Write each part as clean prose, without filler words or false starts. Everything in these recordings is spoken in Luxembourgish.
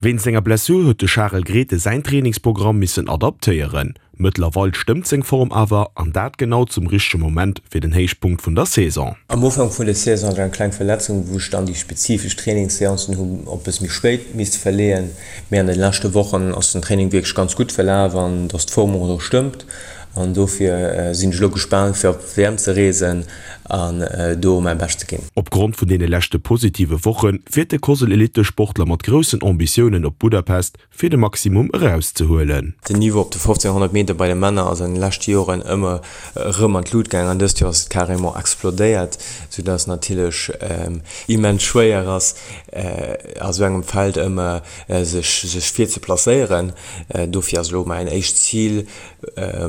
Wéinst enger Blessur huet de Charel Grethen säin Trainingsprogramm missen adaptéieren. Mëttlerweil stëmmt seng Form awer, an dat genau zum richtege Moment fir den Héichpunkt vun der Saison. Am Ufank vun der Saison hat ech eng kleng Verletzung, wou ech dann déi spezifesch Trainingsseancen hu op bësse méi spéit misste verleeën. Mee an de leschte Wochen ass den Training wierklech ganz gutt verlaf an dass d'Form och elo stëmmt. An dofir sinn ech elo gespaant fir op d'WM ze reesen an do mäi Bescht ze ginn. Opgrond vun deene leschte positive Woche fiert de Cosel-Elittesportler mat groussen Ambitiounen op Budapest, fir de Maximum erauszehuelen. Den Niveau op de 1500 Meter bei de Männer ass an de leschte Joren ëmmer erëm an d'Lut gaang an dëst Joer ass et carrément explodéiert, soudass natierlech immens schwéier ass a sou engem Feld ëmmer sech sech vir ze placéieren. Dofir ass elo mäin éischt Zil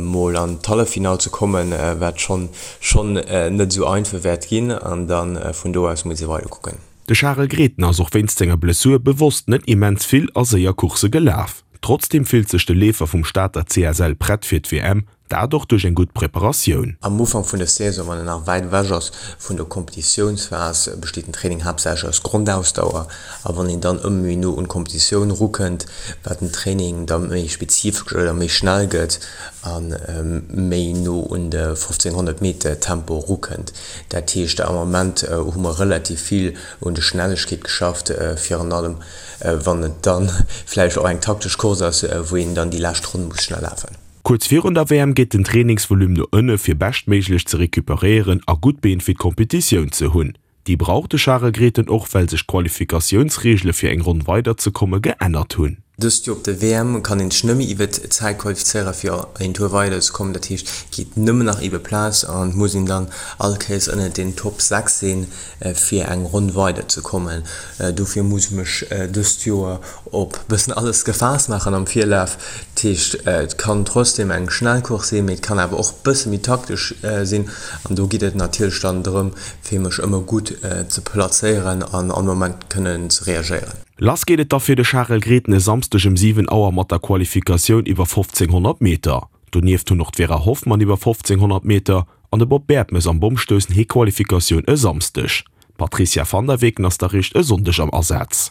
mol an d'Halleffinall ze kommen, wat schonn schonn net esou einfach wäert ginn, an da vun do aus muss ee weider kucken. De Charel Grethen ass och wéinst senger Blessur bewosst net immens vill a séier Coursse gelaf. Trotzdeem fillt sech de Leefer vum Stater CSL prett fir d'WM, dat och duerch eng gutt Preparatioun. Am Ufank vun der Saison, wann en nach wäit ewech ass vun der Kompetitiounsphas, besteet den Training haaptsächlech aus Grondausdauer. A wann een dann ëmmer méi no un d'Kompetitioun erukënnt, wat den Training da méi spezifesch oder méi schnell gëtt a méi no un de 1500 Meter Tempo erukënnt. Dat heescht, am Ament hu mer relativ vill un de Schnellegkeet geschafft, virun allem wann et da vläicht och eng taktesch Course ass, wou een dann déi lescht Ronn muss schnell lafen. Kuerz virun der WM geet den Trainingsvolume no ënne fir beschtméiglech ze recuperéieren a gutt Been fir d'Kompetitioun ze hunn. Déi brauch de Charel Grethen och, well sech d'Qualifikatiounsreegele fir eng Ronn weider ze komme geännert hunn. Dëst Joer op der WM kann een sech nëmme iwwert d'Zäit qualifizéiere fir een Tour weider ze kommen. Dat heescht et geet nëmmen nach iwwer Plaz an et muss een dann all Kéiers ënnert den Top 6 sinn fir eng Ronn weider ze kommen. Dofir muss ech mech dëst Joer op bëssen alles gefaasst maachen am Virlaf. Dat heescht, et kann trotzdem eng schnell Course sinn, mee et kann awer och bësse méi taktesch sinn. An do geet et natierlech dann drëm, fir mech ëmmer gutt ze plazéieren an all Moment kënnen ze reagéieren. Lass geet et da fir de Charel Grethen e Samsdeg ëm 7 Auer mat der Qualifikatioun iwwer 1500 Meter. Donieft hunn och d'Vera Hoffmann iwwer 1500 Meter an de Bob Bertemes am Bommstoussen hir Qualifikatioun e Samsdeg. D'Patricia van der Weken ass da réischt e Sonndeg am Asaz.